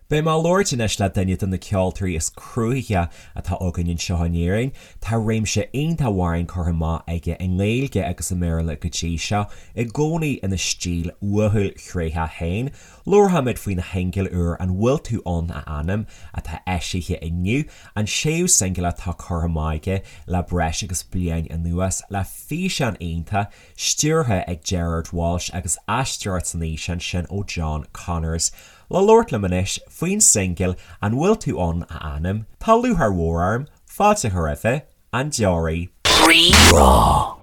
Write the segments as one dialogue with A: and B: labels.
A: Beidh mé ag labhairt anois le duine de na ceoltóirí is cruthaithí atá againn anseo in Éirinn. Tá réimse iontach amhrán curtha amach aige i nGaeilge agus i mBéarla go dtí seo, i gcónaí ina stíl uathúil thréitheach féin. Labharfaimid faoina shingil úr An Bhfuil Tú Ann a Anam, atá eisithe inniu, an séú singil atá curtha amach aige le breis agus bliain anuas, le físeán iontach, stiúrtha ag Gerard Walsh agus aisteoireacht san fhíseán sin ó John Connors. Le labhairt liom anois faoin singil An Bhfuil Tú Ann a Anam, tá lúcháir mhór orm fáilte a chur roimhe, An Deoraí. Rí-Rá.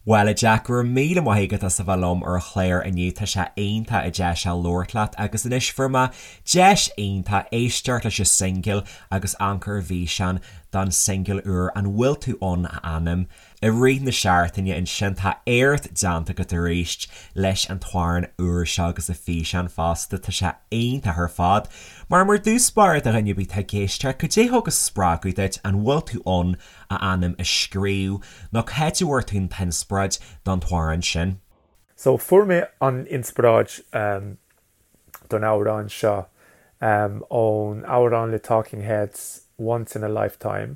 A: Bhuel, a Jack, go raibh míle maith agat as a bheith liom ar an chlár inniu, tá sé iontach deas labhairt leat agus anois fuair mé deis iontach éisteacht leis an singil agus amharc ar an bhfíseán don singil úr An Bhfuil Tú Ann a Anam. I rith na seachtaine ansin tá éacht déanta agat arís leis an t-amhrán úr seo agus an físeán fosta, tá sé iontach ar fad. Mar mar dtús báire do dhuine ar bith atá ag éisteacht, cad é thug an spreagadh duit An Bhfuil Tú Ann a Anam a scríobh nó cá háit a bhfuair tú an t-inspioráid don t-amhrán sin?
B: So fuair mé an inspioráid don amhrán seo ón amhrán le Talking Heads Once in a Lifetime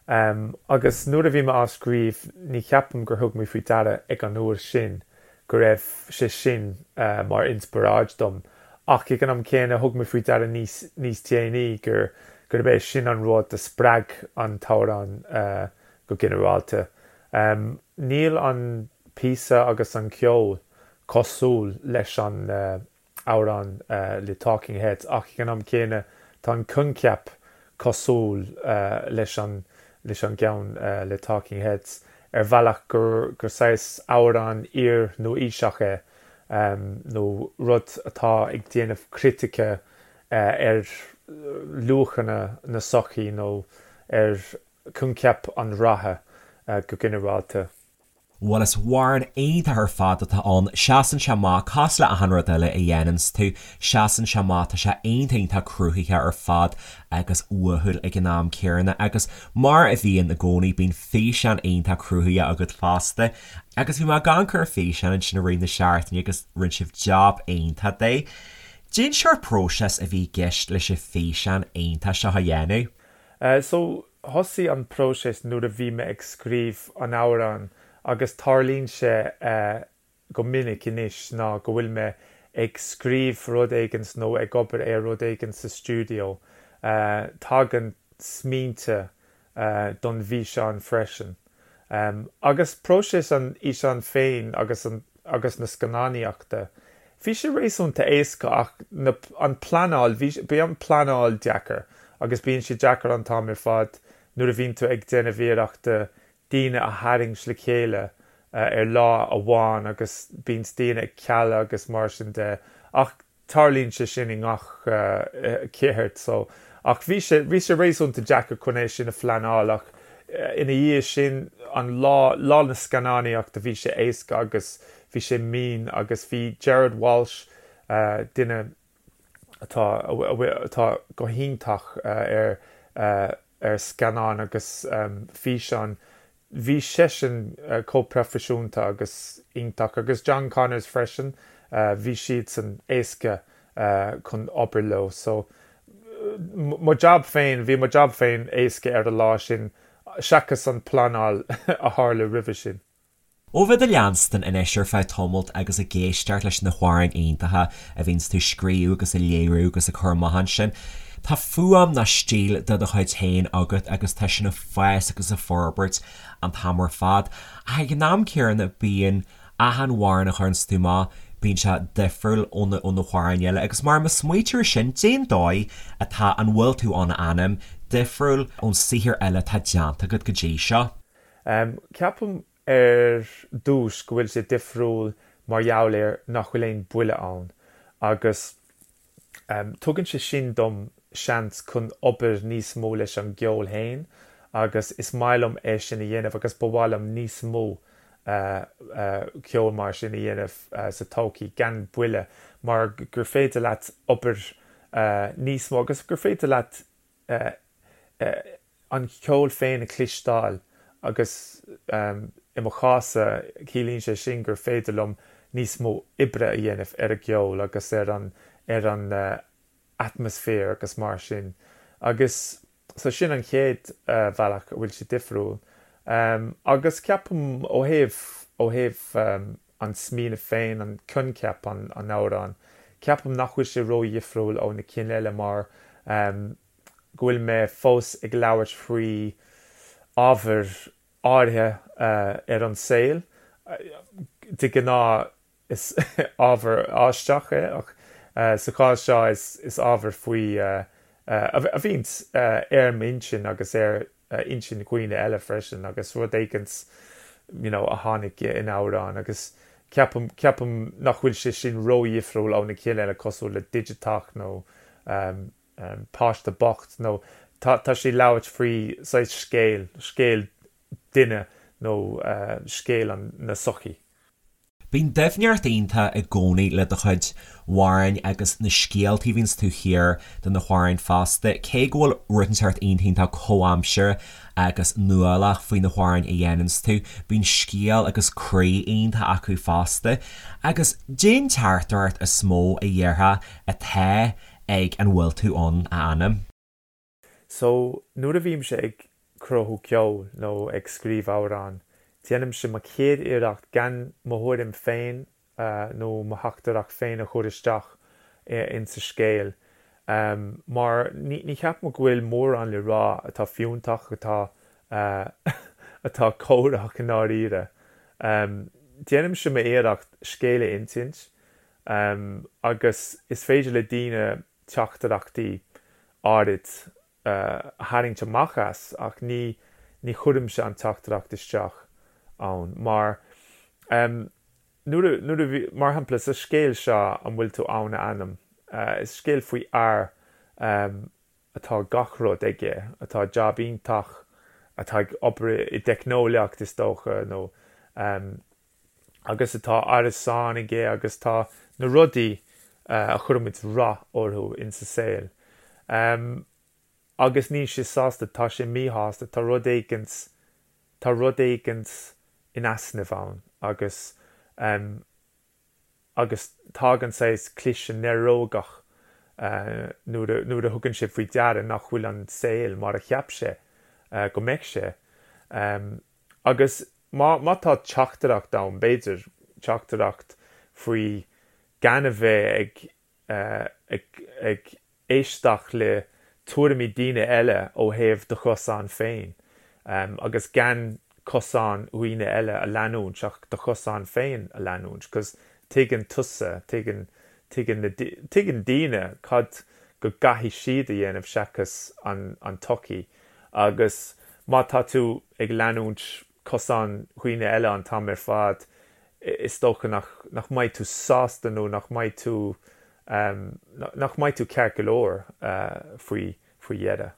B: agus nuair a bhí mé á scríobh ní cheapaim gur thug mé faoi deara ag an uair sin go raibh sé sin mar inspioráid dom ach ag an am céanna thug mé faoi deara níos níos déanaí gur gurb é sin an rud a spreag an t-amhrán go ginearálta. Níl an píosa agus an ceol cosúil leis an amhrán le Talking Heads ach ag an am céanna tá an coincheap cosúil leis an leis an gceann le Talking Heads ar bhealach gur gur saghas amhrán iar-nua-aoiseach é nó rud atá ag déanamh critice ar luachanna na sochaí nó ar choincheap an ratha go ginearálta.
A: Bhuel is amhrán iontach ar fad atá ann, seasann sé amach, cosúil le achan rud eile a dhéananns tú, seasann sé amach, tá sé iontach iontach cruthaithe ar fad agus uathúil ag an am céanna agus mar a bhíonn i gcónaí bíonn físeán iontach cruthaithe agat fosta agus bhí mé ag amharc ar an fhíseán ansin i rith na seachtaine agus rinne sibh job iontach de. Cén sórt próiseas a bhí i gceist leis an físeán iontach seo a dhéanamh?
B: So, thosaigh an próiseas nuair a bhí mé ag scríobh an amhráin agus tarlaíonn sé go minic anois ná go bhfuil mé ag scríobh rud éigin nó ag obair ar rud éigin sa stiúideo, tagann smaointe don bhfíseán freisin. Agus próiseas an fhíseáin féin agus an agus na scannánaíochta, bhí sé réasúnta éasca ach na an pleanáil, bhí bhí an pleanáil deacair agus bíonn sé deacair an t-am ar fad nuair a bhíonn tú ag déanamh iarrachta daoine a tharraingt le chéile ar lá amháin agus bíonn daoine ag cealadh agus mar sin de ach Tarlaíonn sé sin i ngach ceird so ach bhí sé, bhí sé réasúnta deacair chun é sin a phleanáil ach ina dhiaidh sin an lá, lá na scannánaíochta bhí sé éasca agus bhí sé mín agus bhí Gerard Walsh, duine atá, atá go hiontach ar, ar scannáin agus físeáin, Bhí seisean chomh proifisiúnta agus iontach, agus John Connors freisin, bhí siadsan éasca chun obair leo. So, mo jab féin, bhí mo jab féin éasca ar an lá sin, seachas an pleanáil a tharla roimhe sin.
A: Ó bheith do leanstan anois ar feadh tamalt agus ag éisteacht leis na hamhráin iontacha a bhíonns tú scríobh agus a léiriú agus a cur amach ansin, tá fuaim ná stíl de do chuid féin agat agus tá sin ag fás agus ag forbairt an t-am ar fad. Ach ag an am céanna bíonn achan amhrán a chuireanns tú amach, bíonn sé difriúil ó na ó na hamhráin eile agus mar má smaoitítear air sin, cén dóigh atá An Bhfuil Tú Ann a Anam difriúil ón saothar eile atá déanta agat go dtí seo?
B: Ceapaim ar dtús go bhfuil sé difriúil mar gheall ar nach bhfuil aon buille ann agus tugann sé sin dom seans chun obair níos mó leis an gceol féin agus is maith liom é sin a dhéanamh agus ba mhaith liom níos mó ceol mar sin a dhéanamh sa todhchaí gan buille mar gur féidir leat obair níos mó agus gur féidir leat an ceol féin a chloisteáil agus i mo chás-sa ciallaíonn sé sin gur féidir liom níos mó oibre a dhéanamh ar an gceol agus ar an ar an. atmaisféar agus mar sin agus so sin an chéad bhealach a bhfuil sé difriúil. Agus ceapaim ó thaobh, ó thaobh an smaoineamh féin, an coincheap an amhráin, ceapaim nach bhfuil sé ródhifriúil ó na cinn eile mar go bhfuil mé fós ag labhairt faoi ábhair áirithe ar an saol. De ghnáth is ábhar aisteach é ach sa chás seo is ábhar faoi a bhíonns ar m'intinn agus ar intinn dhaoine eile freisin agus rud éigint you know a tháinig in amhrán agus ceapaim ceapaim nach bhfuil sé sin ródhifriúil ó na cinn eile cosúil le Digiteach nó Páiste Bocht nó tá tá sé labhairt faoi saghas scéal, scéal duine nó scéal an na sochaí.
A: Bíonn doimhneacht iontach i gcónaí le do chuid amhráin agus na scéaltaí a bhíonns taobh thiar de na hamhráin fosta. Cé go bhfuil rud inteacht iontach iontach comhaimseartha agus nuálach faoi na hamhráin a dhéananns tú, bíonn scéal agus croí iontach acu fosta. Agus cén teachtaireacht is mó a dhéarfá atá ag An Bhfuil Tú Ann, a Anam?
B: So, nuair a bhímse ag cruthú ceoil nó ag scríobh amhrán, déanaimse mo chéad iarracht gan mo thuairim féin nó mo theachtaireacht féin a chur isteach insa scéal. Mar ní cheapaim go bhfuil mórán le rá atá fiúntach, atá atá córach i ndáiríre. Déanaimse m'iarracht scéal a insint agus is féidir le daoine teachtaireachtaí áirid a tharraingt amach as ach ní ní chuirimse an teachtaireacht isteach ann mar nuair a nuair a bhí mar shampla sa scéal seo an bhfuil tú ann a anam is scéal faoi fhear atá gach rud aige atá jab iontach atá ag obair i dteicneolaíocht is dócha nó agus atá árasán aige agus tá na rudaí a chuirimid rath orthu insa saol. Agus níl sé sásta, tá sé míshásta, tá rud éigint, tá rud éigint in easnamh ann agus agus tagann saghas cliseadh néarógach nuair a nuair a thugann sé faoi deara nach bhfuil an saol mar a cheap sé go mbeadh sé. Agus má, má tá teachtaireacht ann, b'fhéidir, teachtaireacht faoi gan a bheith ag, ag, ag éisteacht le tuairimí daoine eile ó thaobh do chosán féin, agus gan cosán dhaoine eile a leanúint ach do chosán féin a leanúint, 'cause tuigeann tusa, tuigeann, tuigeann na, tuigeann daoine cad go gcaithfidh siad a dhéanamh seachas an, an tsochaí. Agus má tá tú ag leanúint cosán dhaoine eile an t-am ar fad, is dócha nach nach mbeidh tú sásta nó nach mbeidh tú nach mbeidh tú ceart go leor faoi faoi dheireadh.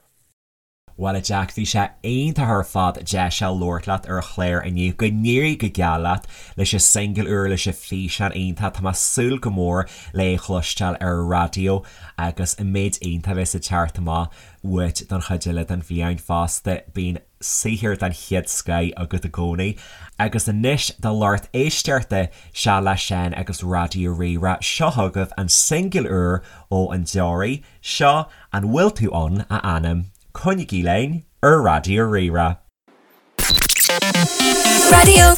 A: Bhuel a Jack, bhí sé iontach ar fad deis a labhairt leat ar an chlár inniu. Go n-éirí go geal leat leis an singil úr, leis an físeán iontach. Tá mé ag súil go mór le é a chloisteáil ar an raidió agus an méid iontach a bheas ag teacht amach uait don chuid eile den bhliain fosta. Bíonn saothar den chéad scoith agat i gcónaí. Agus anois do lucht éisteachta, Sea le Seán agus Raidió Rí-Rá, seo chugaibh an singil úr ó An Deoraí, seo An Bhfuil Tú Ann, a Anam. Coinnígí linn ar Raidió Rí-Rá.
C: Raidió.